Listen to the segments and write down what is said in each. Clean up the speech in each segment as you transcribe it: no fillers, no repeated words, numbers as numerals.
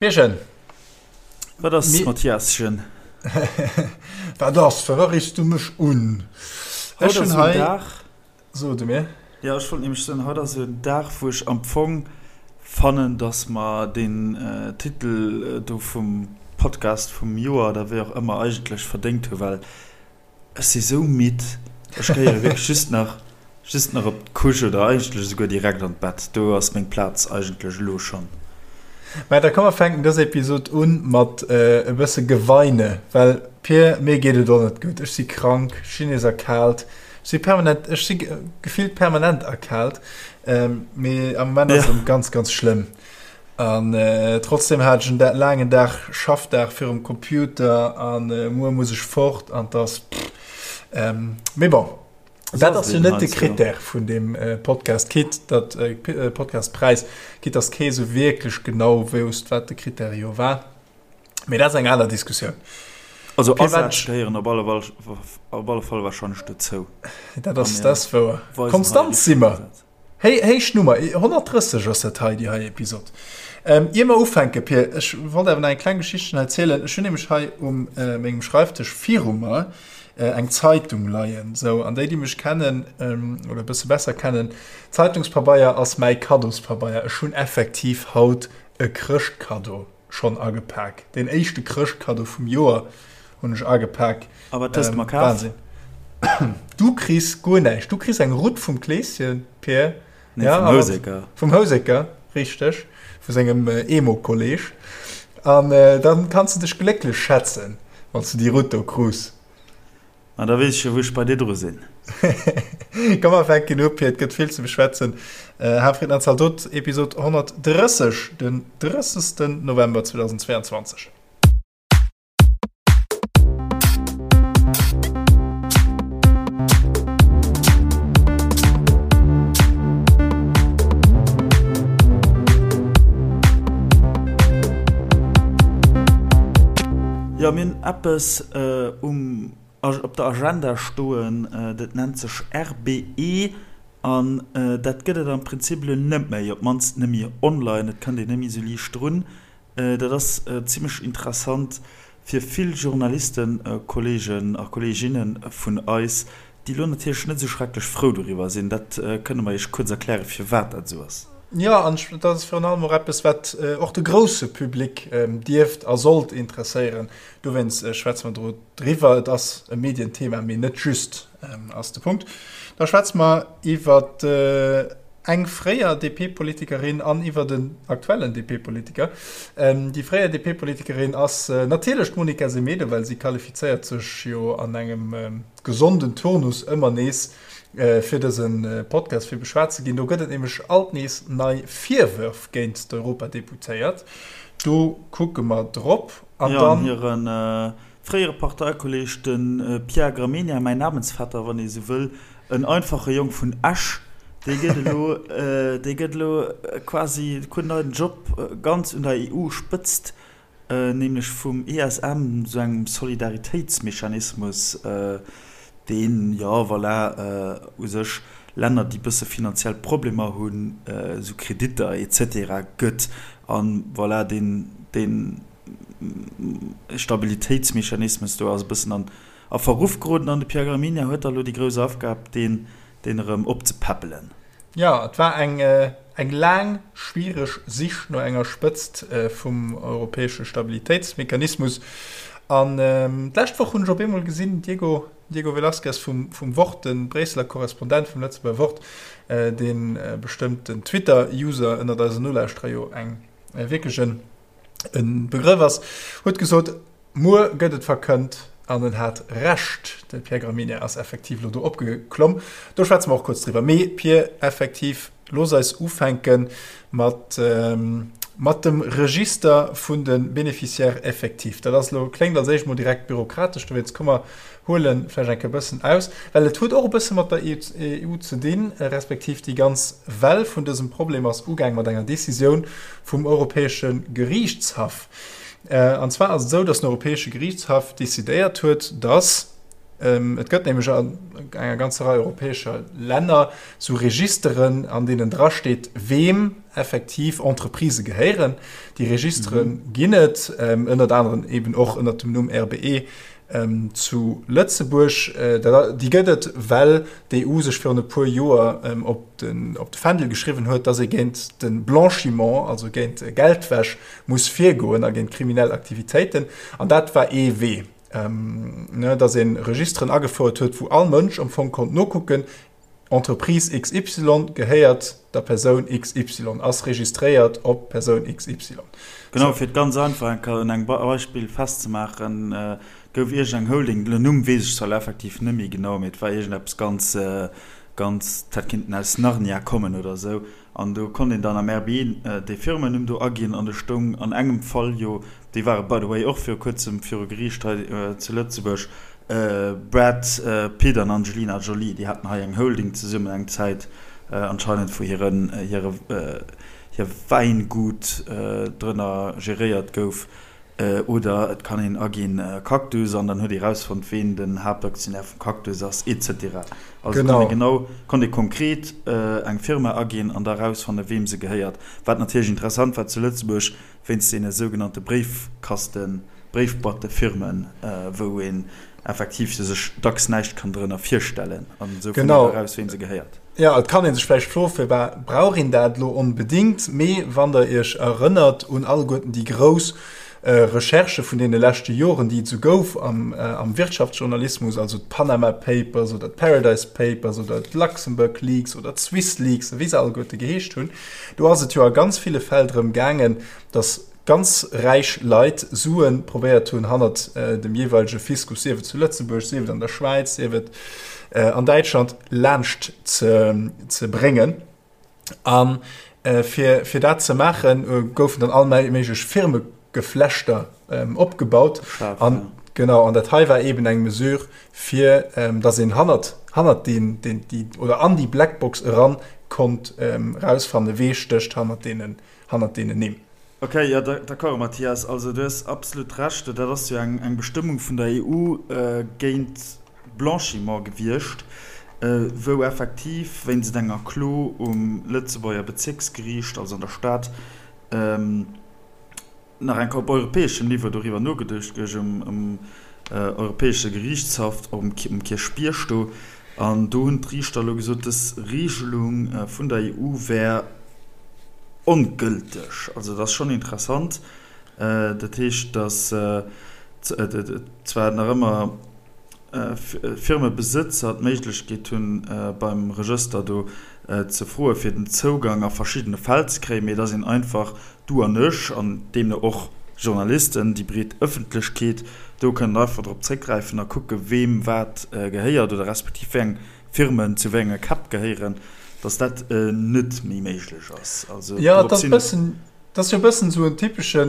Pierchen. Wat ass, Mathiaschen? Wat ass? Firwat riffs du mech un? Haut ass en Dag. So du mir. Jo, ech wollt nämlech soen, haut ass en Dag, wou ech am Fong fannen, dass mer deen Titel do vum Podcast vum Joer oder wéi och ëmmer eigentlech verdéngt hunn, well Ech si sou midd, ech gehéiere wierklech just nach just nach op d'Couche oder eigentlech esouguer direkt an d'Bett. Do ass meng Plaz eigentlech elo schonn. Mä da komm mer fänken dës Episod un mat e bësse Geweine, well Pir, mir geet et och net gutt. Ech si krank, ech sinn nees erkaalt, ech si permanent, ech si gefillt permanent erkaalt, mee am Moment ass et erëm ganz, ganz schlëmm. An trotzdem hat ech en laangen Dag, Schaffdag virum Computer an muer muss ech fort an dass mee bon, dat ass jo net de Critère vun deem Podcast, quitte datt Podcastpräis, quitte datt kee sou wierklech genau wousst, wat de Critère jo war. Mee dat ass eng aner Diskussioun. Also Asätz gehéieren op alle op alle Fall warscheinlech dozou. Dat ass dat ass wouer. Konstant si mer. Héi, héich Nummer, 130 ass dat hei, déi hei Episod. Ier mer ufänken, Pir, ech wollt awer nach eng kleng Geschichtchen hei zielen. Ech hunn nämlech hei um mengem Schreifdësch viru mer eng Zeitung leien. Sou, an déi, déi mech kennen oder e bësse besser kennen, Zeitungspabeier ass mäi Kaddospabeier. Ech hunn effektiv haut e Chrëschtkaddo schonn agepak. Deen éischte Chrëschtkaddo vum Joer hunn ech agepak. A wat hues de mer kaf? Wahnsinn. Du kriss guer näischt. Du kriss eng Rutt vum Kleeschen, Pir. Nee, ja, vum Houseker. Vum Houseker, richteg. Vu sengem Emo-Kolleg. An dann kanns de dech glécklech schätzen, wann s du déi Rutt do krus. Ma da weess ech jo, wou ech bei dir dru sinn. Komm mer fänken u, Pir, et gëtt vill ze beschwätzen. Hafried an Zaldot, Episod 130, den 30. November 2022. Jo, mir hunn eppes um op der Agenda stoen, dat nennt sech RBE an dat gëtt et am Prinzip elo net méi, op d'mannst net méi online, et kënnt een net méi esou liicht drun. Dat ass zimmlech interessant fir vill Journalistenkolleegen a kolleeginne vun eis, déi elo natierlech net esou schrecklech frou doriwwer sinn. Dat kënne mer Iech kuerz erklären, firwat dat esou ass. Jo, an dat ass virun allem och eppes, wat och de grousse Public dierft a sollt interesséieren. Dowéinst schwätze mer do driwwer. Et ass e Medienthema, mee net just, ass de Punkt. Da schwätze mer iwwer eng fréier DP-Politikerin an iwwer en aktuellen DP-Politiker. Déi fréier DP-Politikerin ass natierlech d'Monica Semedo, well si qualifizéiert sech jo an engem gesonden Turnus ëmmer nees fir dëse Podcast fir beschwat ze ginn. Do gëtt et nämlech alt nees nei Virwërf géint d'Europadeputéiert. Do kucke mer drop. An dann. Jo, an hire fréiere Parteikolleeg, de Pierre Gramegna, mäin Namensvetter, wann ee sou wëll, en einfache Jong vun Esch, dee gëtt elo, dee gëtt elo quasi, krut en neien Job ganz un der EU-Spëtzt. Nämlech vum ESM, esou engem Solidaritéitsmechanismus, deen, jo voilà, u sech Länner, déi bësse finanziell Problemer hunn, esou Kreditter et cetera gëtt. A voilà, deen, dee Stabilitéitsmechanismus do ass e bëssen an a Verruff geroden an de Pierre Gramegna huet da elo déi grouss Aufgab, deen, deen erëm opzepäppelen. Jo, et war eng eng laang, schwiereg Sich no enger Spëtzt vum europäesche Stabilitéitsmechanismus. An d'lescht Woch hunn ech op eemol gesinn, Diego, Diego Velázquez vum vum Wort, de Bréisseler Korrespondent vum Lëtzebuerger Wort, dee bestëmmt den Twitter-User ënnert eisen Nolauschterer jo eng wierklech en e Begrëff ass, huet gesot, Muer gëtt et verkënnt. An en hat Recht, de Pierre Gramegna ass effektiv elo do opgeklomm. Do schwätze mer och kuerz driwwer. Mee Pir, effektiv, looss eis ufänke mat, mat dem Register vun de Bénéficiaires effectifs. Dat ass elo, kléngt als éischt mol direkt bürokratesch, dowéinst komm mer huele vläicht eng Kéier e bëssen aus, well et huet och e bësse mat der EU ze dinn, respektiv déi ganz Well vun dësem Problem ass ugaang mat enger Décisioun vum Europäesche Geriichtshaff. An zwar ass et esou, datt den Europäesche Geriichtshaff decidéiert huet, datt. Et gëtt nämlech an enger ganzer Rei europäescher Länner sou Registeren, an deenen drasteet, weem effektiv Entreprisë gehéieren. Déi Registere ginn et, ënnert aneren eben och ënnert dem Numm RBE zu Lëtzebuerg. Déi gëtt et, well d'EU sech virun e puer Joer op de Fändel geschriwwen huet, datt ee géint de Blanchiment, also géint Geldwäsch, muss virgoen a géint kriminell Aktivitéiten. An dat war ee Wee. ne, dass een Registeren agefouert huet, wou all Mënsch am Fong konnt nokucken, Entreprise XY gehéiert der Persoun XY, ass registréiert op Persoun XY. Genau, fir et ganz einfach eng Kéier un engem Beispill festzemaachen, gouf iergend eng Holding, den Numm weess ech zwar elo effektiv net méi genau, mee et war iergendeppes ganz, ganz, dat hätt kinnten aus Narnia kommen oder esou, An do konnt een dann am RBI dee Firmennumm do aginn an do stoung an engem Fall jo, déi ware by the way och viru kuerzem viru Geriicht hei zu Lëtzebuerg, Brad Pitt an Angelina Jolie, déi haten hei eng Holding zesummen eng Zäit anscheinend, wou hiren, hire, hir Wäingut drënner geréiert gouf. Oder et kann een aginn Cactus an dann huet ee rausfonnt ween den Haaptaktionär vum Cactus ass et cetera. Also kann ee genau, konnt ee konkret eng Firma aginn an da rausfanne weem se gehéiert. Wat natierlech interessant war zu Lëtzebuerg wéinst deene sougenannte Bréifkasten, Bréifboîtefirmen, wou een effektiv sech dacks näischt kann drënner virstellen an esou fënnt een eraus weem se gehéiert. Jo, et kann ee sech vläicht froen, firwat brauch een dat elo onbedéngt? Mee wann der iech erënnert un alleguerten déi grouss Recherchë vun deene leschte Joren, déi et esou gouf am Wirtschaftsjournalismus, also d'Panama Papers oder d'Paradise Papers oder d'Luxembourg Leaks oder d'Swiss Leaks a wéi se alleguerte geheescht hunn, do ass et jo a ganz ville Fäll drëm gaangen, datt ganz räich Leit Sue probéiert hunn hannert dem jeeweilege Fiskus, sief et zu Lëtzebuerg, sief et an der Schwäiz, sief et an Däitschland, laanscht ze bréngen. A fir dat ze maachen, goufen dann all méiglech Firmegeflechter opgebaut. An genau, an dat hei war eeben eng Mesure, fir datt een hannert, hannert deen, deen, déi, oder an déi Blackbox eran konnt erausfannen, wee stécht hannert deenen hannert deenen Nimm. Ok, jo, d'accord, Mathias. Also du hues absolut Recht. Dat ass jo eng Bestëmmung vun der EU géint Blanchiment gewiescht, wou effektiv wéinst enger Klo um Lëtzebuerger Bezierksgeriicht, also an der Stad, nach eng Kéier op europäeschem Niveau doriwwer nogeduecht gouf, um Europäesche Geriichtshaff um Kierchbierg do. An do hunn d'Riichter elo gesot, dës Regelung vun der EU wär ongëlteg. Also dat ass schonn interessant. Dat heescht, datt zwar nach ëmmer Firmebesëtzer d'Méiglechkeet hunn, beim Regëster do ze froe fir den Zougang a verschiddene Fäll ze kréien, mee datt een einfach, du an ech an deemno och Journalisten, déi breet Ëffentlechkeet, do kënnen einfach drop zréckgräifen a kucke weem wat gehéiert oder respektiv wéi eng Firmen zu wéi enge Käpp gehéieren, datt dat net méi méiglech ass. Also dorop sinn. Dat ass jo e bëssen esou en typesche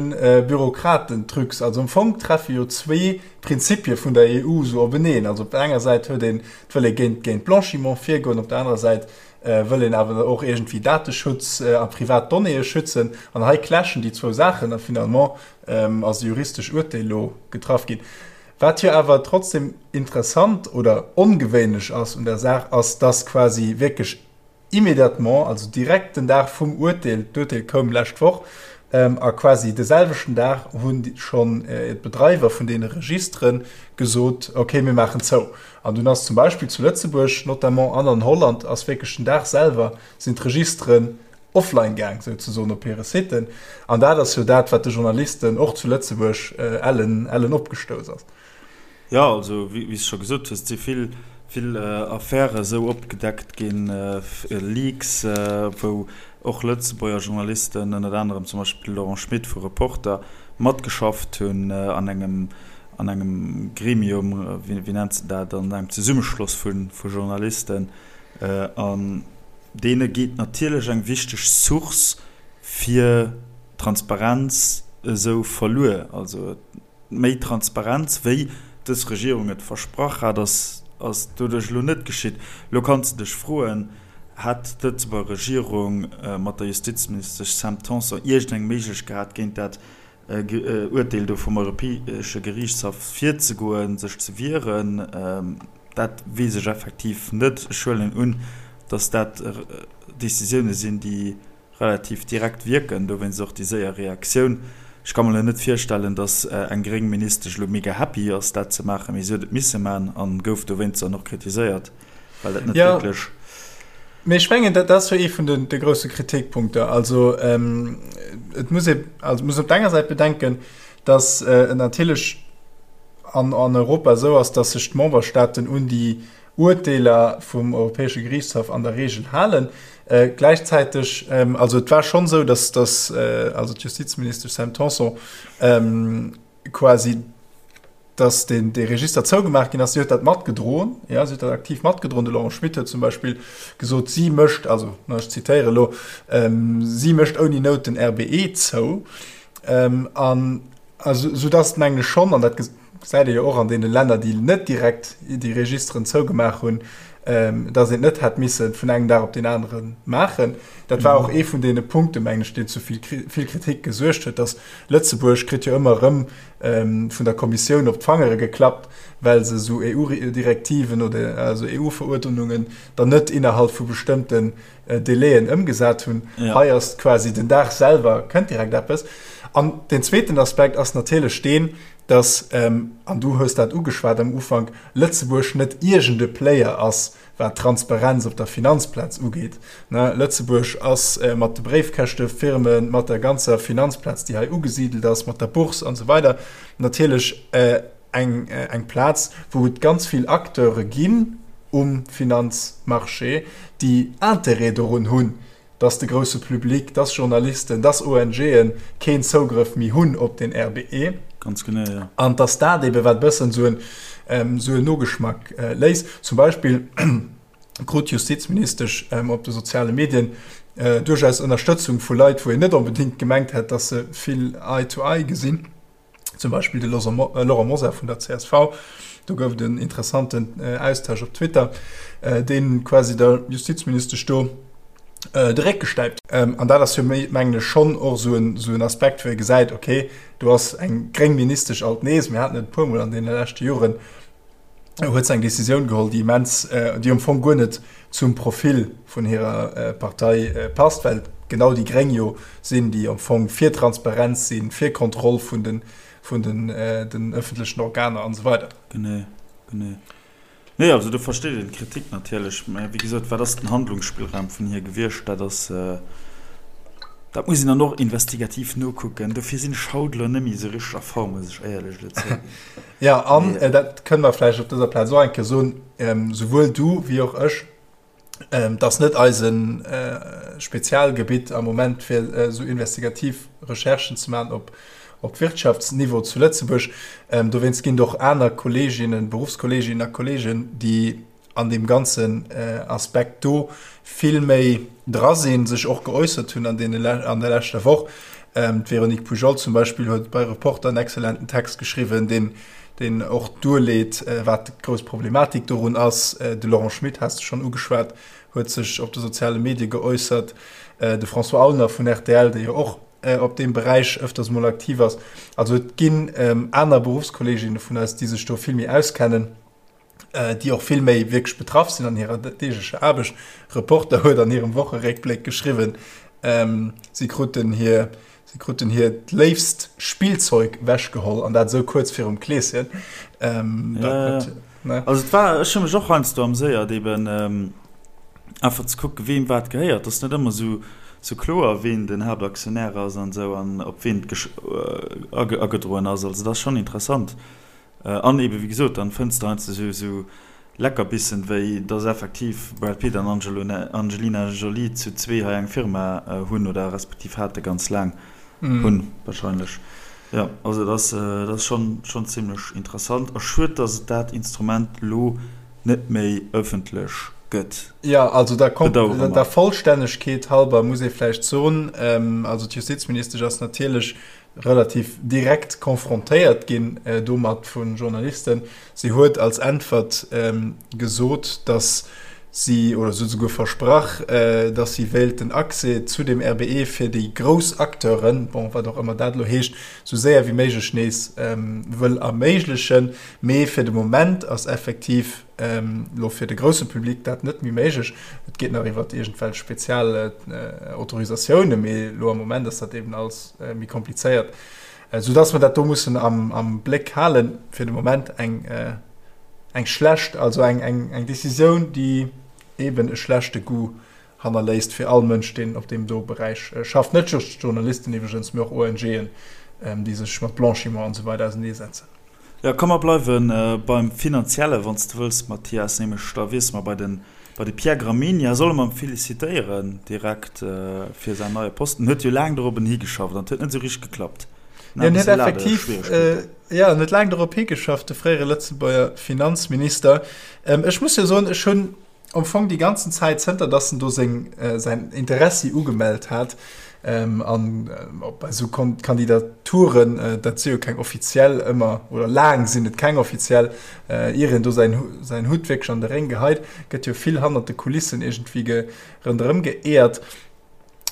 Bürokratentrücks. Also am Fong treffe jo zwee Prinzipie vun der EU esou openeen. Also op der enger Säit huet een, et wëll ee géint, géint Blanchiment virgoen, op der anerer Säit wëll een awer och iergendwéi Dateschutz a privat Donnéeë schützen. An hei clashen déi zwou Saachen a finalement ass e juristesch Urteel elo getraff ginn. Wat jo awer trotzdem interessant oder ongewéinlech ass un der Saach, ass, dass quasi wierklech Immédiatement, also direkt den Dag vum Urteel, d'Urteel koum lescht Woch, a quasi de selwechten Dag hunn schonn d'Bedreiwer vun deene Registere gesot, okay, mir maachen zou. An dunn ass zum Beispill zu Lëtzebuerg notamment an an Holland ass wierklech den Dag selwer sinn d'Registeren offline gaang, souzesoen, op hire Siten. An dat ass jo dat, wat de Journalisten och zu Lëtzebuerg ellen, ellen opgestouss ass. Jo, also wéi s de scho gesot hues, et si vill, vill Affäre esou opgedeckt ginn, Leaks, wou och Lëtzebuerger Journalisten, ënnert anerem zum Beispill de Laurent Schmit vu Reporter, matgeschafft hunn an engem, an engem Gremium, wéi nennt se dat, an engem Zesummeschloss vu Journalisten. An deene geet natierlech eng wichteg Source fir Transparenz esou verluer. Also Méi Transparenz, wéi dës Regierung et versprach hat, ass doduerch elo net geschitt. Elo kanns de dech froen, Hätt d'Lëtzebuerger Regierung mat der Justizministesch Sam Tanson iergendeng Méiglechkeet gehat, géint dat. Urteel do vum Europäesche Geriichtshaff virzegoen, sech ze wieren. Dat weess ech effektiv net. Ech huelen un, datt dat Decisioune sinn, déi relativ direkt wierken, dowéinst och déi séier Reaktioun. Ech ka mer elo net virstellen, datt eng gréng Ministesch elo mega happy ass, dat ze maachen, mee si huet et misse maachen a gouf dowéinst dann och kritiséiert, well dat net wierklech. Mee ech mengen, dat ass jo ee vun de grousse Kritikpunkter. Also et muss ee, also muss op der enger Säit bedenken, datt et natierlech an Europa esou ass, datt sech d'Memberstaaten un déi Urteeler vum Europäesche Geriichtshaff an der Reegel halen. Gläichzäiteg, also et war schonn esou, datt datt also d'Justizministesch Sam Tanson quasi, datt deen dee Register zougemaach ginn ass, si huet dat matgedroen, jo, si huet dat aktiv matgedroen. De Laurent Schmit huet zum Beispill gesot, si mécht, also ech zitéiere elo, si mécht ouni Nout den RBE zou. An soudatt, mengen ech schonn, an dat gesäit ee jo och an deene Länner, déi net direkt déi Registeren zougemaach hunn, datt een et net hätt misse vun engem Dag op deen anere maachen. Dat war och ee vun deene Punkten, mengen ech, deen zu vill Kritik gesuergt huet, datt Lëtzebuerg kritt jo ëmmer erëm vun der Kommissioun op d'Fangere geklappt, well se esou EU-Direktiven oder also EU-Veruerdnungen dann net innerhalb vu bestëmmten Délaiën ëmgesat hunn. Ja. Hei ass quasi den Dag selwer kënnt direkt eppes. An den zweeten Aspekt ass natierlech deen, dass, ähm, an du hues dat ugeschwat am Ufank, Lëtzebuerg net iergende Player ass, wat d'Transparenz op der Finanzplaz ugeet. Ne, Lëtzebuerg ass äh, mat de Bréifkäschtefirmen, mat der ganzer Finanzplaz, déi hei ugesidelt ass, mat der Bourse an esou weider, natierlech äh, eng, eng Plaz, wou et ganz vill Acteure ginn um Finanzmarché, déi Interêt dorun hunn, dass de grousse Public, dass Journalisten, dass ONGe keen Zougrëff méi hunn op den RBE. Ganz genau, jo. An dass dat eebe wat e bëssen esou en, esou en Nogeschmack léisst. Zum Beispill krut d'Justizministesch op de soziale Medien duerchaus Ënnerstëtzung vu Leit, wou een net onbedéngt gemengt hätt, dass se vill Eye to Eye gesinn. Zum Beispill de Laurent Mosar vun der csv. Do gouf et en interessanten Austausch op Twitter, dee quasi der Justizministesch do de Réck gestäipt. An dat ass jo, mengen ech, schonn och esou en Aspekt, wou ee gesäit, okay, do ass eng gréng Ministesch alt nees, mir haten et e puermol an deene leschte Joren, huet se eng Decisioun geholl, déi immens, déi am Fong guer net zum Profil vun hirer Partei passt, well et genau déi Gréng jo sinn, déi am Fong fir Transparenz sinn, fir Kontroll vun den, vun den, den ëffentlechen Organer an esou weider. Genee, genee. Nee, also do versteet een d'Kritik natierlech, mä wéi gesot, wat ass den Handlungsspillraum vun hir gewiescht? Dat ass, dat muss een dann och investigativ nokucken. Dofir sinn ech haut elo net méi esou richteg a Form, muss ech éierlech elo zouginn. Jo, an dat kënne mer vläicht op dëser Plaz och eng Kéier soen, souwuel du wéi och ech, et ass net eise Spezialgebitt am Moment, fir esou investigativ Recherchen ze maachen op op Wirtschaftsniveau zu Lëtzebuerg. Dowéinst ginn et och aner Kolleeginnen, Beruffskolleeginnen a Kolleegen, déi an deem ganzen Aspekt do vill méi dra sinn, sech och geäussert hunn an deene an der leschter Woch. D'Véronique Poujol zum Beispill huet bei Reporter en exzellenten Text geschriwwen, deen deen och duerleet, wat d'grouss Problematik dorun ass. De Laurent Schmit has de schonn ugeschwat, huet sech op de soziale Medie geäussert. De François Aulner vun rtl, dee jo och op deem Beräich ëfters mol aktiv ass. Also et ginn aner Beruffskolleeginne vun eis, déi sech do vill méi auskennen. déi och vill méi wierklech betraff sinn an hirer deeglecher Aarbecht. Reporter huet an hirem Wocheréckbléck geschriwwen, si kruten hir, si kruten hiert léifst Spillzeug wechgeholl an dat esou kuerz virum Kleeschen. Ja, ja. Also et war, ech hu mech och heiansdo amséiert eben einfach ze kucken, weem wat gehéiert. Et ass net ëmmer esou, esou kloer, ween den Haaptaktionär ass an esou an op ween et agedroen ass. Also dat ass schonn interessant. An eben, wéi gesot, dann fënns de heiansdo esou esou Leckerbissen, wéi dass effektiv Brad Pitt an Angelina Jolie zu zwee hei eng Firma hunn, oder respektiv hate ganz laang, hunn wahrscheinlech. Jo, also dat ass, dat ass schonn, schonn zimlech interessant. A schued, dass et dat Instrument lo net méi ëffentlech gëtt. Jo, also der, der Vollstännegkeet halber muss ee vläicht soen, also d'Justizministesch ass natierlech relativ direkt konfrontéiert ginn domat vu Journalisten. Si huet als Äntwert gesot, datt Si, oder se huet esouguer versprach, datt si wéilt den Accès zu dem RBE fir déi grouss Acteuren, bon, wat och ëmmer dat elo heescht, esou séier wéi méiglech nees wëll erméiglechen. Mee fir de Moment ass effektiv elo fir de grousse Public dat net méi méiglech. Et geet nach iwwer iergendwelch spezial Autorisatiounen, mee elo am Moment ass dat eben alles méi komplizéiert, soudatt mer dat do mussen am Bléck halen. Fir de Moment eng. Eng schlecht, also eng, eng, eng Decisioun, déi eben e schlechte Goût hannerléisst fir all Mënsch, deen op deem do Beräich schafft. Net just Journalisten iwwregens, mee och ONGen, déi sech mat Blanchiment an esou weider auseneesetzen. Jo, komm mer bleiwe beim Finanziellen, wann s de wëlls, Mathias, nämlech da wiessele mer bei de, bei de Pierre Gramegna. Solle mer em felicitéieren direkt fir säin neie Posten? En huet jo laang dorobben higeschafft an et huet net esou richteg geklappt. En huet effektiv, Jo, en huet laang dorop higeschafft, de fréiere Lëtzebuerger Finanzminister. Ech muss jo soen, ech hunn am Fong déi ganzen Zäit, zënter datt en do seng, säin Interessi ugemellt hat, an bei esou Kandidaturen, dat si jo keng offiziell ëmmer, oder laang sinn et keng offiziell, ier een do säin, säin Hutt wierklech an de Réng geheit, gëtt jo vill hannert de Kulissen iergendwéi ronderëm geeërt.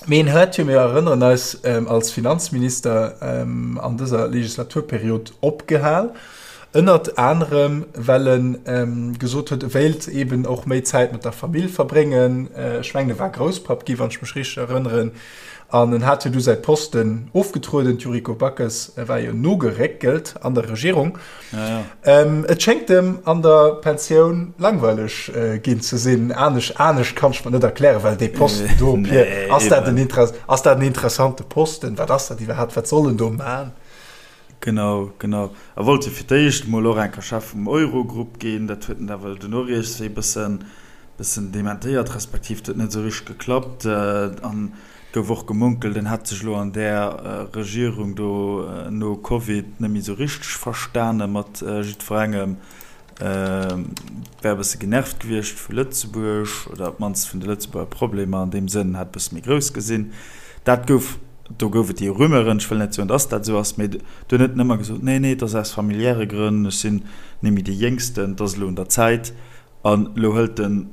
Mee en huet jo, mir erënneren eis, als Finanzminister an dëser Legislaturperiod opgehal, ënnert anerem well e gesot huet, e wéilt eeben och méi Zäit mat der Famill verbréngen. Ech mengen, e war Grousspapp gi, wann ech mech richteg erënneren. An en hat jo du säi Posten ofgetrueden. D'Yuriko Backes war jo nogeréckelt an der Regierung. Ja, ja. Ähm, et schéngt em an der Pensioun langweileg äh, ginn ze sinn. Anesch, anescht kann ech mer net erklären, well dee Posten do, nee, Pierre, ass dat en Interess ass dat en interessante Posten? Wat ass dat iwwerhaapt? Wat soll en do man? Genau, genau. A wollt jo fir d'éischt mol och enker Chef vum Eurogrupp ginn. Dat huet en awer duerno riets wéi bëssen, bëssen dementéiert, respektiv et huet net esou richteg geklappt. An Et gouf och gemunkelt, en hätt sech elo an där Regierung do no Covid net méi esou richteg verstane mat jiddwerengem, wär e bësse genervt gewiescht vu Lëtzebuerg oder op d'mannst vun de Lëtzebuerger Problemer an deem Sënn, hätt e bësse méi grouss gesinn. Dat gouf, do gouf et déi Rumeuren, ech wëll net soen, dass dat esou ass, mee dunn huet en ëmmer gesot, nee, nee, et ass aus familiäre Grënn, ech sinn net méi dee Jéngsten, et ass elo un der Zäit. An elo hëlt en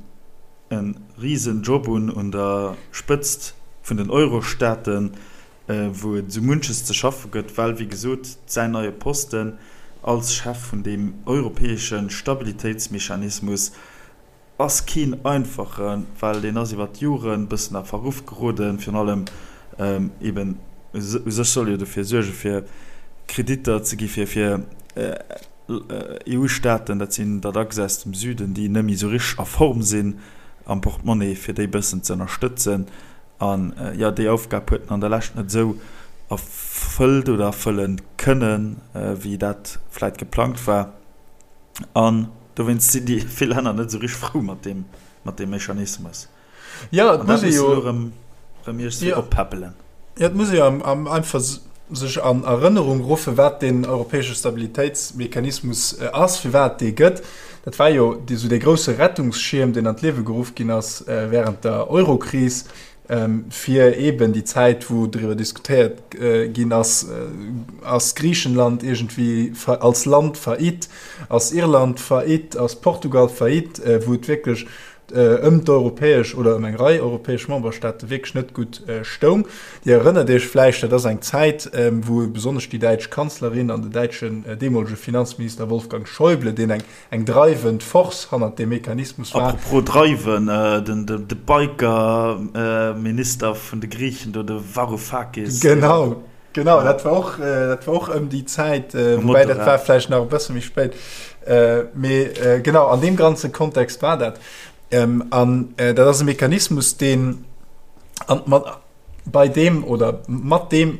e risen Job un un der Spëtzt vun den Eurostaaten, wou et esou munches ze schaffe gëtt, well wéi gesot säin neie Posten als Chef vun deem europäesche Stabilitéitsmechanismus ass keen einfachen, well deen ass iwwer d'Joren e bëssen a Verruff geroden, virun allem eben u sech soll e jo dofir suerge fir Kreditter ze gi fir EU-Staaten, dat sinn der dacks aus dem Süden, déi net méi esou richteg a Form sinn am Portemonnaie, fir déi bëssen ze ënnerstëtzen. An jo, déi Aufgab huet en an der Lescht net esou erfëllt oder erfëlle kënnen, wéi dat vläit geplangt war. An dowéinst sinn déi vill Länner net esou richteg frou mat deem, mat deem Mechanismus. Ja, et muss ee jo erëm iergendwéi oppäppelen. Ja, et muss ee jo einfach sech an Erënnerung ruffen, wat deen europäesche Stabilitéitsmechanismus ass, firwat et dee gëtt. Dat war jo esou dee grousse Rettungsschierm, deen an d'Liewe geruff ginn ass während der Eurokris, fir eeben déi Zäit, wou driwwer diskutéiert ginn ass, ass Griichenland iergendwéi als Land faillite, ass Irland faillite, ass Portugal faillite, wou et wierklech ëm d'europäesch oder ëm eng Rei europäesch Memberstaate wierklech net gutt stoung. Dir erënnert Iech vläicht, dat ass eng Zäit, wou besonnesch déi däitsch Kanzlerin an den däitschen deemolege Finanzminister Wolfgang Schäuble, deen eng eng dreiwend Force hannert deem Mechanismus war. Apropos dreiwen, de Biker-Minister vun de Griichen do, de Varoufakis. Genau. Genau, dat war och, dat war och ëm déi Zäit, woubäi dat war vläicht nach e bësse méi spéit. Mee genau, an deem ganze Kontext war dat. An dat ass e Mechanismus, deen an mat bei deem oder mat deem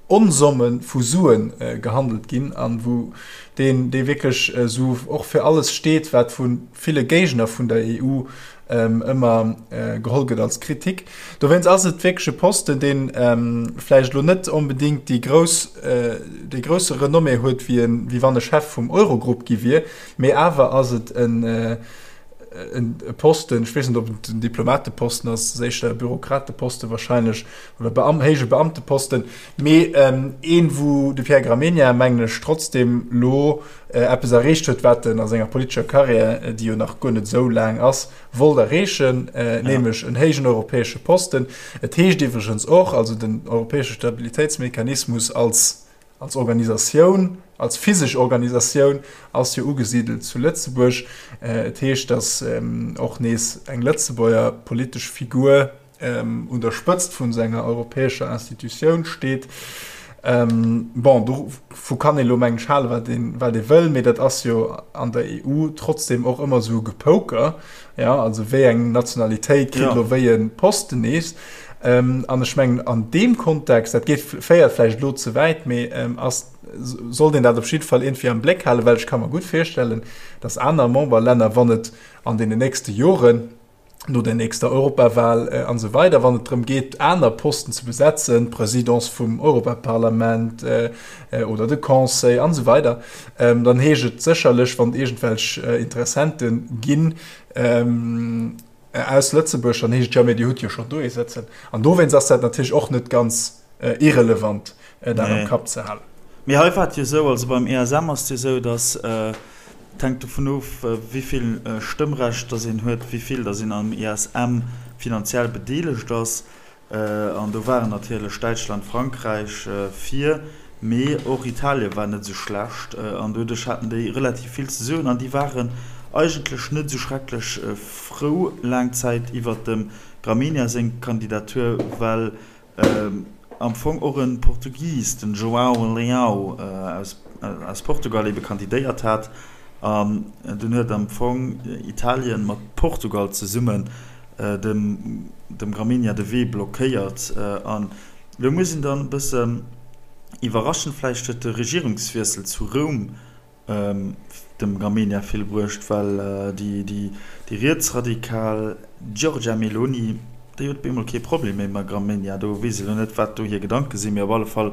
Onsomme vu Sue gehandelt ginn an wou deen, dee wierklech esou och fir alles steet, wat vu ville Géigner vun der EU ëmmer geholl gëtt als Kritik. Dowéinst ass et wierklech e Posten, dee vläicht elo net onbedéngt déi grouss, dee grousse Renommée huet, wéi en, wéi wann e Chef vum Eurogrupp gi wier, mee awer ass et en, e Posten, ech weess net, ob et en Diplomateposten ass, ass éischter e Bürokrateposte wahrscheinlech oder Beam héije Beamteposten, mee een, wou de Pierre Gramegna, mengen ech, trotzdem lo eppes erreecht huet, wat en a senger politescher Karriär, déi jo nach guer net esou laang ass, wollt erreechen, nämlech en héijen europäesche Posten. Et heescht iwwregens och, also den europäesche Stabilitéitsmechanismus als Als Organisatioun, als physesch Organisatioun ass jo ugesidelt zu Lëtzebuerg. Et heescht, datt och nees eng Lëtzebuerger politesch Figur un der Spëtzt vun esou enger europäescher Institutioun steet. Bon, dovu kann ee lo mengen ech halen, wat een, wat ee wëll, mee dat ass jo an der EU trotzdem och ëmmer esou e Gepoker. Jo, also wéi eng Nationalitéit kritt elo wéi e Posten nees. An ech mengen, an deem Kontext, dat geet, féiert vläicht elo ze wäit, mee ass, sollt een dat op jidde Fall iergendwéi am Bléck halen, well ech ka mer gutt virstellen, datt aner Memberlänner, wann et an deenen nächste Joren, no der nächster Europawal an esou weider, wann et drëm geet, aner Posten ze besetzen, d'Presidence vum Europaparlament oder de Conseil an esou weider, dann heescht et sécherlech, wann et iergendwelch Interessente ginn, Aus Lëtzebuerg, dann heescht et, jo, mee Dir hutt jo schonn do ee sëtzen. An dowéinst ass dat natierlech och net ganz irrelevant, dat am Kapp ze halen. Mee hei war et jo esou, also beim ESM ass et jo esou, datt, et hänkt dovun of, wéi vill Stëmmrecht datt een huet, wéi vill datt een am ESM finanziell bedeelegt ass. An do waren natierlech Däitschland, Frankräich vir, mee och Italien war net esou schlecht. An doduerch haten déi relativ vill ze soen an déi waren eigentlech net esou schrecklech frou laang Zäit iwwert dem Gramegna seng Kandidatur, well am Fong och e Portugis, den João Leão aus Portugal ebe kandidéiert hat. An dunn huet am Fong Italien mat Portugal zesummen dem dem Gramegna de Wee blockéiert. An elo muss een dann e bëssen iwwerraschend, vläicht huet de Regierungswiessel zu Roum dem Gramegna vill bruecht, well déi déi déi rietsradikal Giorgia Meloni, déi huet op eemol kee Problem méi mam Gramegna. Do weess ech elo net, wat do hir Gedanke sinn, mee op alle Fall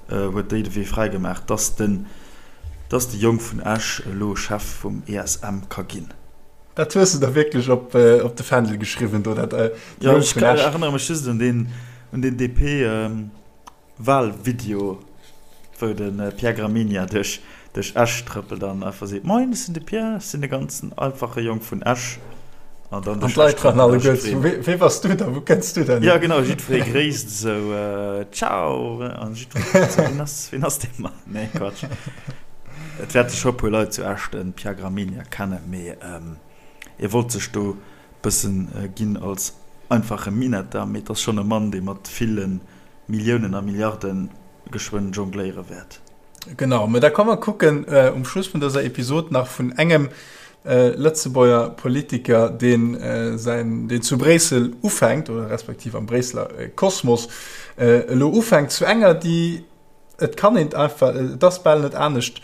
huet déi de Wee fräi gemaach, dass den dass de Jong vun Esch elo Chef vum ESM ka ginn. Dat hues de der wierklech op de Fändel geschriwwen do, dat Jo, ech erënnere mech just un deen, un deen DP-Wahlvideo, wou de Pierre Gramegna duerch, duerch Esch trëppelt an einfach seet, Moin, ech sinn de Pierre, ech sinn de ganzen einfache Jong vun Esch. An dann duerch Esch trëppelt a jiddweree. Wee bass du da? Wou kënns du denn hier? Jo, genau, jiddweree gréisst esou, Ciao! An jiddweree kuckt esou, Wien ass, wien ass dee Mann? Nee, Quatsch. Et wäerte scho puer Leit zu Esch de Pierre Gramegna kennen, mee e wollt sech do bëssen ginn als einfache Minetter, mee et ass schonn e Mann, dee mat ville Milliounen a Milliarde geschwënn jongléiere wäert. Genau, mä da komm mer kucken um Schluss vun dëser Episod nach vun engem Lëtzebuerger Politiker, deen säin, deen zu Bréissel ufänkt, oder respektiv am Bréisseler Kosmos elo ufänkt, zu enger, déi, Et kann een einfach, et ass bal net anescht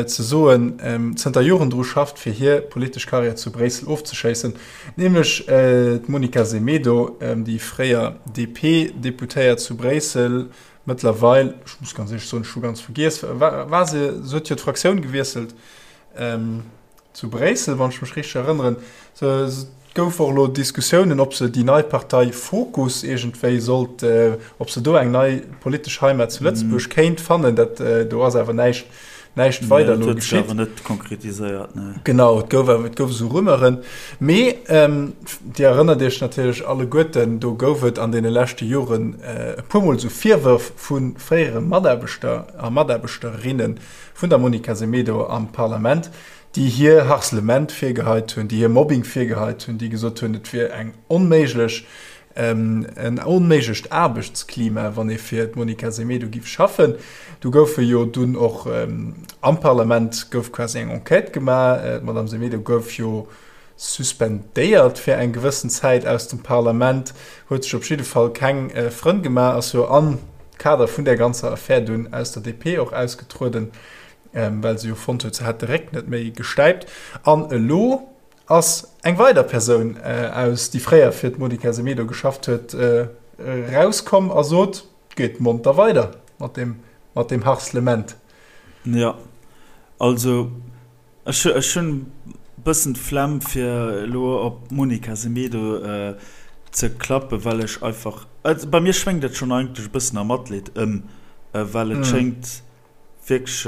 ze soen, zënter Joren dru schafft, fir hir politesch Karriär zu Bréissel ofzeschéissen, nämlech d'Monica Semedo, déi fréier DP-Deputéiert zu Bréissel, mëttlerweil, ech muss ganz éierlech soen, ech hu ganz vergiess, war se, se huet jo d'Fraktioun gewiesselt, Zu Bréissel, wann ech mech richteg erënneren. Et gouf och elo Diskussiounen, ob se déi nei Partei Fokus iergendwéi sollt, ob se do eng nei politesch Heimat zu Lëtzebuerg kéint fannen. Dat do ass awer näischt, näischt weider elo geschitt. Dat huet sech awer net konkretiséiert, nee. Genau, et gouf awer, et gouf esou Rumeuren. Mee Dir erënnert Iech natierlech alleguerten, do gouf et an deene leschte Joren e puermol esou Virwërf vu fréiere Mataarbechter a Mataarbechterinnen, vun der Monica Semedo am Parlament, déi hir Harcèlement virgeheit hunn, déi hir Mobbing virgeheit hunn, déi gesot hunn, et wier eng onméiglech, en onméiglecht Aarbechtsklima, wann ee fir d'Monica Semedo giff schaffen. Do goufe jo dunn och am Parlament gouf quasi eng Enquête gemaach. D'Madame Semedo gouf jo suspendéiert fir eng gewëssen Zäit aus dem Parlament, huet sech op jidde Fall keng Frënn gemaach, ass jo am Kader vun där ganzer Affär dunn aus der DP och ausgetrueden, well se jo fonnt huet, se hätt de Réck net méi gestäipt. An elo ass eng weider Persoun aus, déi fréier fir d'Monica Semedo geschafft huet, erauskomm a sot, Geet monter weider mat deem, mat deem Harcèlement. Jo, also Ech hunn e Bëssen d'Flemm fir elo op d'Monica Semedo ze klappen, well ech einfach, also bei mir schwéngt et schonn eigentlech e bëssen a Matleed ëm, well et schéngt wierklech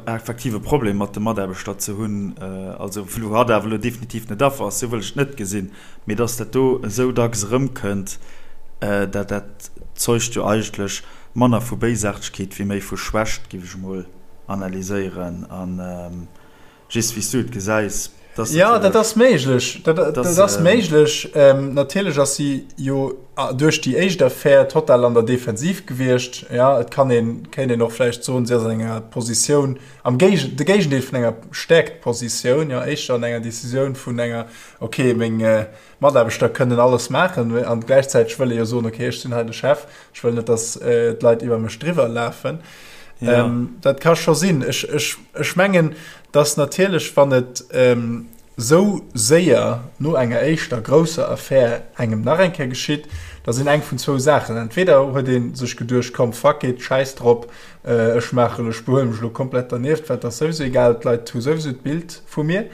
effektiv e Problem mat de Mataarbechter ze hunn, also wou hatt awer elo definitiv net Affer ass, sou wëll ech et net gesinn, mee dass dat do esou dacks erëmkënnt, dat dat zeugt jo eigentlech manner vu Béisaartegkeet wéi méi vu Schwächt, géif ech emol analyséieren an just wéi s du et gesäis. Dass ja, dat ass méiglech. Dat, dat ass méiglech. Ähm, natierlech ass si jo duerch déi éischt Affär total an der Defensiv gewiescht. Ja, et kann een, kéint een och vläicht soen, si ass an enger Positioun, am Géige, de Géigendeel vun enger Stäerktpositioun, ja, éischter an enger Decisioun vun enger, okay, meng, äh, Mataarbechter kënnen alles maachen an gläichzäiteg wëll ee jo soen, okay, ech sinn hei de Chef, ech wëll net, datt d'Leit iwwer mech driwwer lafen. Ja. Ähm, dat ka scho sinn. Ech, ech, ech mengen, datt natierlech, wann et ähm, sou séier no enger éischter grousser Affär engem nach eng Kéier geschitt, da sinn eng vun zwou Saachen. Entweder huet ee sech geduecht, komm, fuck it, schäiss drop, Ech maachen, ech behuele mech elo komplett dernieft, well et ass souwisou egal, d'Leit hu souwisou d'Bild vu mir.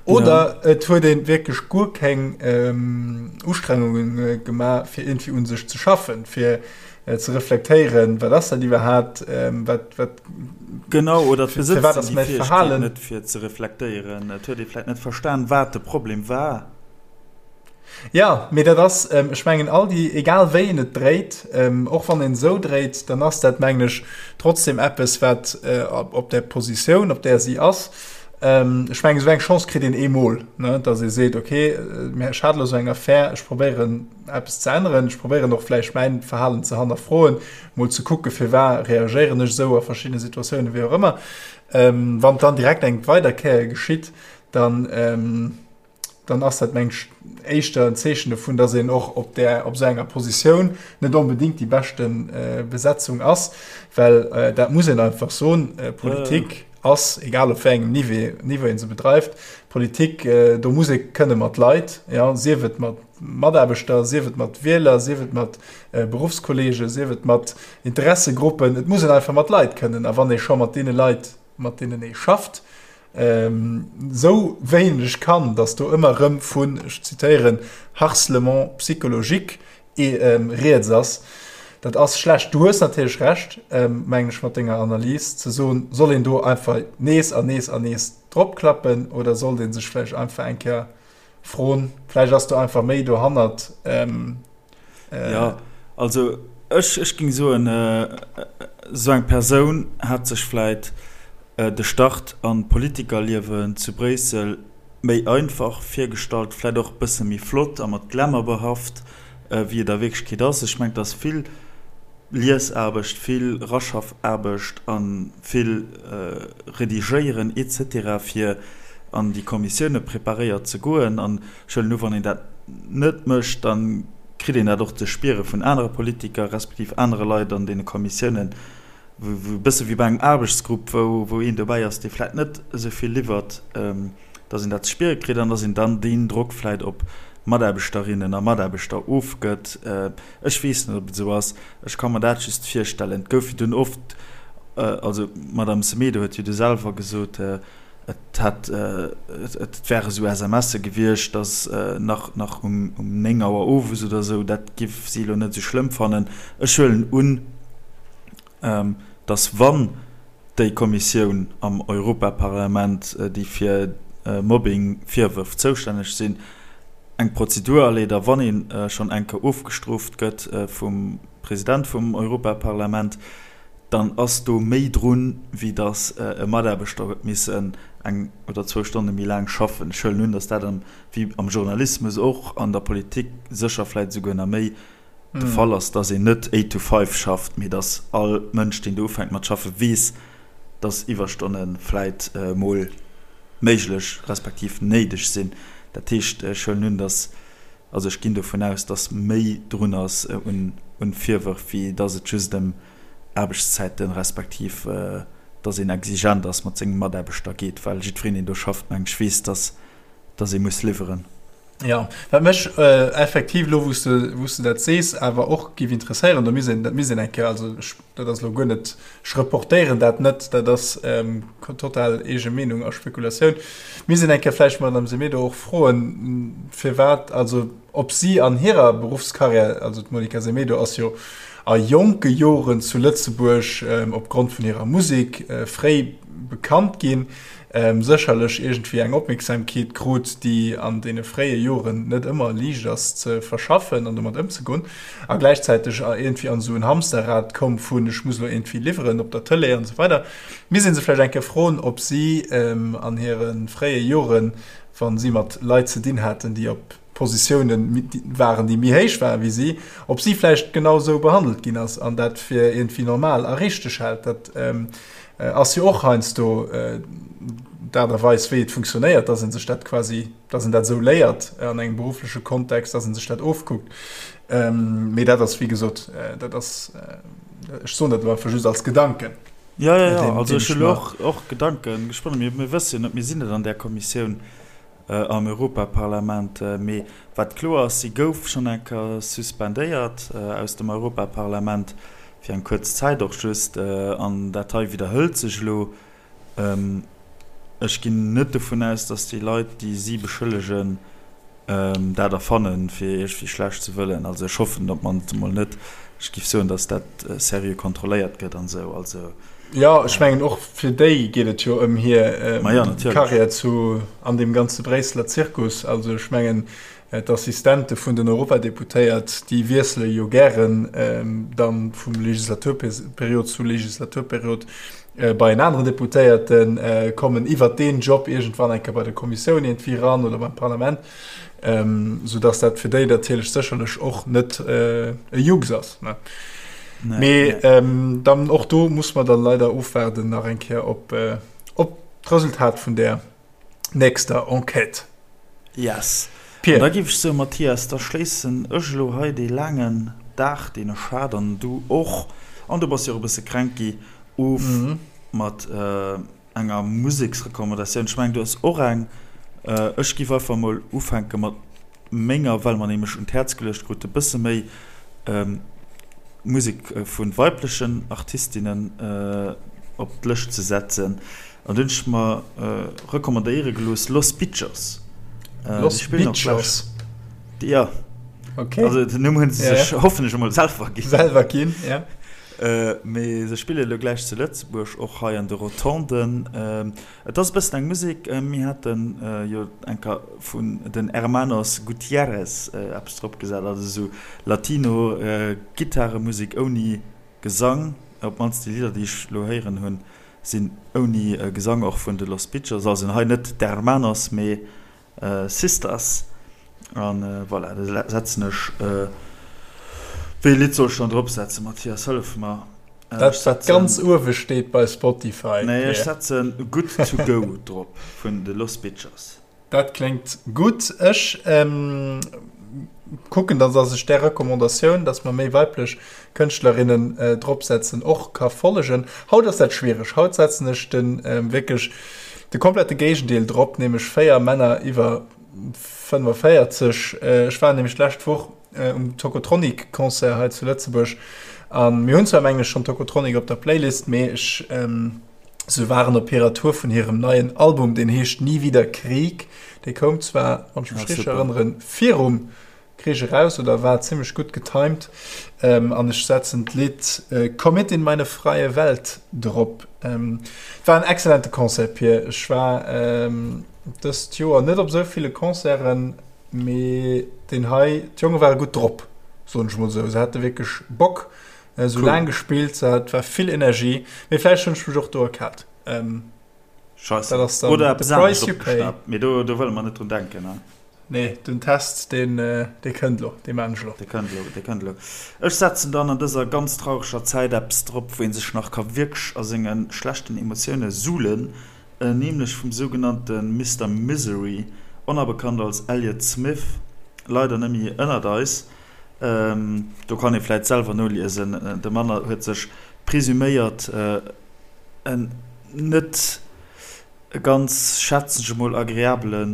Oder ja. et huet een wierklech guer keng ähm, Ustrengungen gemaach, fir irgendwie un sech ze schaffen, fir äh, ze reflektéieren, wat ass dat iwwerhaapt, ähm, wat, wat, Genau, oder fir, fir wat ass mäi Verhalen. Net fir ze reflektéieren. Et huet ee vläicht net verstan, wat de Problem war. Jo, mee dat ass, ech mengen, all déi, egal wéi een et dréit, och wann een esou dréit, dann ass dat, mengen ech, trotzdem eppes, wat op där Positioun, op där si ass, ech mengen, esou eng Chance kritt een eemol, ne, datt ee seet, okay, ech hat elo esou eng Affär, ech probéieren eppes ze änneren, ech probéieren och vläicht mäin Verhalen ze hannerfroen, mol ze kucken, firwat reagéieren ech esou a verschiddene Situatiounen, wéi och ëmmer. Wann et dann direkt eng weider Kéier geschitt, dann, dann ass dat meng ech éischter en Zeechen dovun, dass een och op där op esou enger Positioun net onbedéngt déi beschte Besetzung ass, well dat muss een einfach soen, Politik ass, egal op wéi engem Niveau Niveau ee se bedreift, Politik, do muss ee kënne mat Leit, jo, sief et mat Mataarbechter, sief et mat Wieler, sief et mat Beruffskollegen, sief et mat Interessegruppen, et muss een einfach mat Leit kënnen. A wann ee scho mat deene Leit, mat deenen ee schafft, esou wéineg kann, datt do ëmmer erëm vun, ech zitéieren, harcèlement psychologique rieds ass, dat ass schlecht. Du hues natierlech Recht, mengen ech, mat denger Analys, ze soen, soll een do einfach nees an nees an nees dropklappen oder sollt ee sech vläicht einfach eng Kéier froen, vläicht ass do einfach méi dohannert. Jo, also ech, ech géing soen, esou eng Persoun hat sech vläit de Start an d'Politikerliewen zu Bréissel méi einfach virgestallt, vläit och e bësse méi flott a mat Glamour behaft, wéi et a Wierklechkeet ass. Ech mengen, et ass vill Liesaarbecht, vill Raschaffaarbecht a vill Redigéieren et cetera fir an déi Kommissioune preparéiert ze goen. An ech huelen u, wann een dat net mécht, da kritt een dat och ze spiere vun anere Politiker respektiv anere Leit an deene Kommissiounen, wou e bësse wéi bei engem Aarbechtsgrupp, wou een dobäi ass, dee vläicht net esou vill liwwert, dass een dat ze spiere kritt an dass een dann deen Drock vläicht op Mataarbechterinnen a Mataarbechter ofgëtt. Ech weess net, ob et esou ass. Ech ka mer dat just virstellen. Et gouf jo dunn oft, also d'Madame Semedo huet jo du selwer gesot, et hätt, et wäre esou SMSe gewiescht, dass nach, nach um 9 Auer owes oder esou, dat giff si elo net esou schlëmm fannen. Ech huelen un, dass wann déi Kommissioun am Europaparlament, déi fir Mobbing-Virwërf zoustänneg sinn, eng Prozedur aleet a wann ee schonn eng Kéier ofgestrooft gëtt vum President vum Europaparlament, dann ass do méi drun, wéi datt e Mataarbechter huet missen eng oder zwou Stonne méi laang schaffen. Ech huelen un, datt dat, wéi am Journalismus och, an der Politik sécher vläicht esouguer nach méi, de Fall ass, dass een net eight to five schafft, mee dass all Mënsch, deen do ufänkt mat schaffen, weess, dass Iwwerstonne vläit mol méiglech respektiv néideg sinn. Dat heescht, ech huelen un, dass, also ech ginn dovun aus, dass méi drun ass un Virwërf, wéi dass et just ëm Aarbechtszäiten respektiv dass een exigent ass mat senge Mataarbechter geet, well jiddwereen, deen do schafft, meng ech, weess, dass dass ee muss liwweren. Ja, wat mech effektiv elo, wou s de, wou s de dat sees, awer och géif interesséieren, do misst een, dat misst een eng Kéier, also ech, dat ass elo guer net, ech reportéieren dat net, dat ass total eege Meenung a Spekulatioun, misst een eng Kéier vläicht d'Madame Semedo och froen, firwat, also ob si an hirer Beruffskarriär, also d'Monica Semedo ass jo a jonke Joren zu Lëtzebuerg opgrond vun hirer Musek fréi bekannt ginn, sécherlech iergendwéi eng Opmierksamkeet krut, déi an deene fréie Joren net ëmmer liicht ass ze verschaffen an domat ëmzegoen, a gläichzäiteg iergendwéi an esou en Hamsterrad koum vun ech muss elo iergendwéi liwweren op der Tëlee an esou weider. Misst ee se vläicht eng Kéier froen, ob si an hire fréie Joren, wa si mat Leit ze dinn haten, déi op Positioune waren, déi méi héich waren wéi si, ob si vläicht genau esou behandelt ginn ass an dat fir iergendwéi normal a richteg hält. Dat ass jo och heiansdo d'Aart a Weis, wéi et funktionéiert, dass ee sech dat quasi, dass een dat esou léiert an engem beruffleche Kontext, dass ee sech dat ofkuckt. Mee dat ass, wéi gesot, dat ass, ech soen dat elo einfach just als Gedanken. Jo, jo, jo, also ech hunn elo och Gedanken gesponnen. Mir wësse jo net, mir sinn net an där Kommissioun. am Europaparlament. Mee wat kloer ass, si gouf schonn eng Kéier suspendéiert aus dem Europaparlament, fir eng kuerz Zäit och just. An dat hei widderhëlt sech elo. Ech ginn net dovun aus, datt déi Leit, déi si beschëllegen, dat erfannen, fir iergendwéi schlecht ze wëllen. Also ech hoffen op d'mannst emol net. Ech géif soen, datt dat seriö kontrolléiert gëtt an esou. Also. Jo, ech mengen och fir déi geet et jo ëm hir Karriär zu an deem ganze Bréisseler Zirkus. Also ech mengen d'Assistente vun den Europadeputéiert, déi wiessele jo gären dann vum Legislaturperiod zu Legislaturperiod bei en aneren Deputéierten, kommen iwwert deen Job iergendwann eng Kéier bei der Kommissioun iergendwéi eran oder beim Parlament, soudass dat fir déi natierlech sécherlech och net e Jux ass. Nee, Mee ähm, dann och do muss man dann leider ofwaarden nach eng Kéier op, äh, op d'Resultat vun der nächster Enquête. Yes. Pierre. An da géif ech soen, Mathias, da schléissen ech elo hei dee laangen Dag, deen ech hat, an du och, an du bass jo och e bësse kränk gi, of mm. mat äh, enger Museksrecommandatioun. Ech mengen, du hues och eng. Ech giff einfach mol ufänke mat menger, well mer nämlech un d'Häerz geluecht krute bësse méi Musek vu weiblechen Artistinnen op d'Lëscht ze setzen. An do hunn ech mer recommandéiere gelooss Los Bitchos. Los Bitchos? Jo. Okay. Also den Numm hunn se sech hoffentlech emol selwer ginn. Selwer ginn, ja. Mee se spille elo gläich zu Lëtzebuerg, och hei an de Rotonden. Et ass e bëssen eng Musek, mir hate jo eng Kéier vun den Hermanos Gutierrez eppes drop gesat, also esou Latino Gittaremusek ouni Gesang. Op d'mannst déi Lidder, déi ech elo héieren hunn, sinn ouni Gesang, och vun de Los Bitchos. Also hei net d'Hermanos, mee Sisters an voilà, da setzen ech, wéi ee Lidd soll ech dann drop setzen, Mathias, hëllef mer. Dat wat ganz uewe steet bei Spotify. Nee, ech setzen Good to Go drop vun de Los Bitchers. Dat kléngt gutt. Ech kucken dann, dass ech där Recommandatioun, dass mer méi weiblech Kënschtlerinnen drop setzen, och ka follegen. Haut ass dat schwiereg. Haut setzen ech de wierklech de komplette Géigendeel drop, nämlech 4 Männer iwwer 45. Ech war nämlech d'lescht Woch um Tocotronic Concert hei zu Lëtzebuerg an mir hunn zwar mengen ech schonn Tocotronic op der Playlist, mee ech se waren op hirer Tour vun hirem neien Album, deen heescht Nie wieder Krieg. Dee koum zwar, wann ech mech richteg erënneren, virum Krich eraus oder war zimmlech gutt getimed an ech setzen d'Lidd Komm mit in meine freie Welt drop. Et war en excellente Concert Pir. Ech war dëst Joer net op esou ville Concerten, mee deen hei, d'Jonge ware gutt drop, soen ech mol esou. Se hate wierklech Bock, se hu laang gespillt, et war vill Energie, mee vläicht hunn ech mech och do erkaalt. Scheisse. Dat ass dann Oder eppes anescht opgeschnappt, mee do wëlle mer net drun denken. Nee, den Test, deen, dee kënnt elo, dee maan ech elo. Dee kënnt elo, dee kënnt elo. Ech setzen dann an dëser ganz traureger Zäit eppes drop, wou ee sech nach ka wierklech a senge schlechten Emotioune suhlen, nämlech vum sougenannte Mister Misery, onerbekannt als Elliott Smith, leider net méi ënnert eis. Do kann ee vläit selwer noliesen, de Mann huet sech presuméiert en net. E ganz, schätzen ech emol, agreabele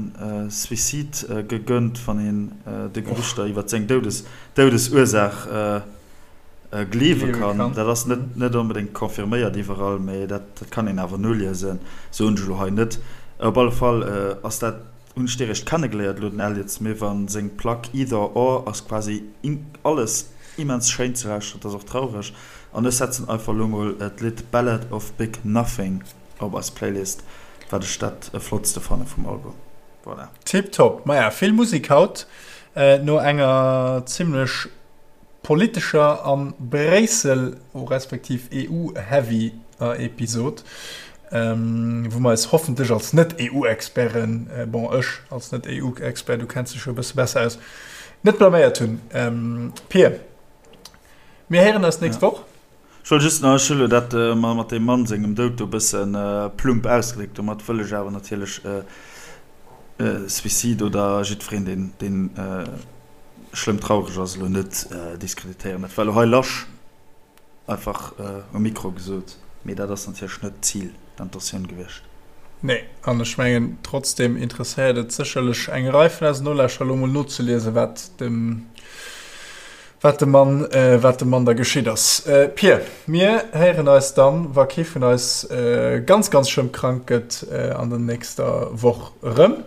Suicide gegönnt, wann een de Gerüchter iwwer seng Doudesursaach gleewe kann. Dat ass net onbedéngt confirméiert iwwerall, mee dat kann een awer noliesen, soen ech elo hei net. Op alle Fall ass dat, hunn ech dee réischt kennegeléiert elo, den Elliott Smith, a seng Plack Either Or ass quasi alles immens schéin ze lauschteren, et ass och traureg. An ech setzen einfach elo mol d'Lidd Ballad of Big Nothing. Op eis Playlist, wat ech dat flottste fanne vum Album. Voilà. Tip top. Maja, vill Musik haut no enger zimlech politescher an Bréissel respektiv EU-heavy Episod, wou mer eis hoffentlech als Net-EU-Experten, bon ech als Net-EU-Expert, du kenns dech jo e bësse besser aus, net blaméiert hunn. Pir, mir héieren eis d'nächst Woch. Ech wollt just nach, ech hu lo dat mat deem Mann sengem Doud do e bësse plump ausgedréckt, domat wëll ech awer natierlech Suicide oder jiddwereen, deen, deen schlëmm traureg ass, elo net diskreditéieren. Dat war elo hei lasch einfach um Mikro gesot, mee dat ass natierlech net d'Zil, d'Intentioun gewiescht. Nee, an ech mengen, trotzdem interesséiert et sécherlech eng Rei vun eisen Nolauschterer, elo mol nozeliesen, wat dem Wat dem Mann, wat dem Mann da geschitt ass. Pir, mir héieren eis dann, wa kee vun eis ganz, ganz schlëmm krank gëtt, an der nächster Woch erëm.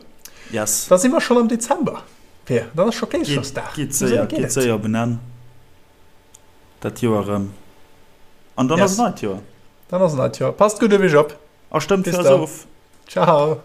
Yes. Da si mer schonn am Dezember, Pir. Dann ass scho Kleeschersdag. Geet séier, geet séier op en Enn, dat Joer erëm. An dann ass en neit Joer. Dann ass en neit Joer. Passt gutt op iech op. A stëmmt fir eis of. Ciao.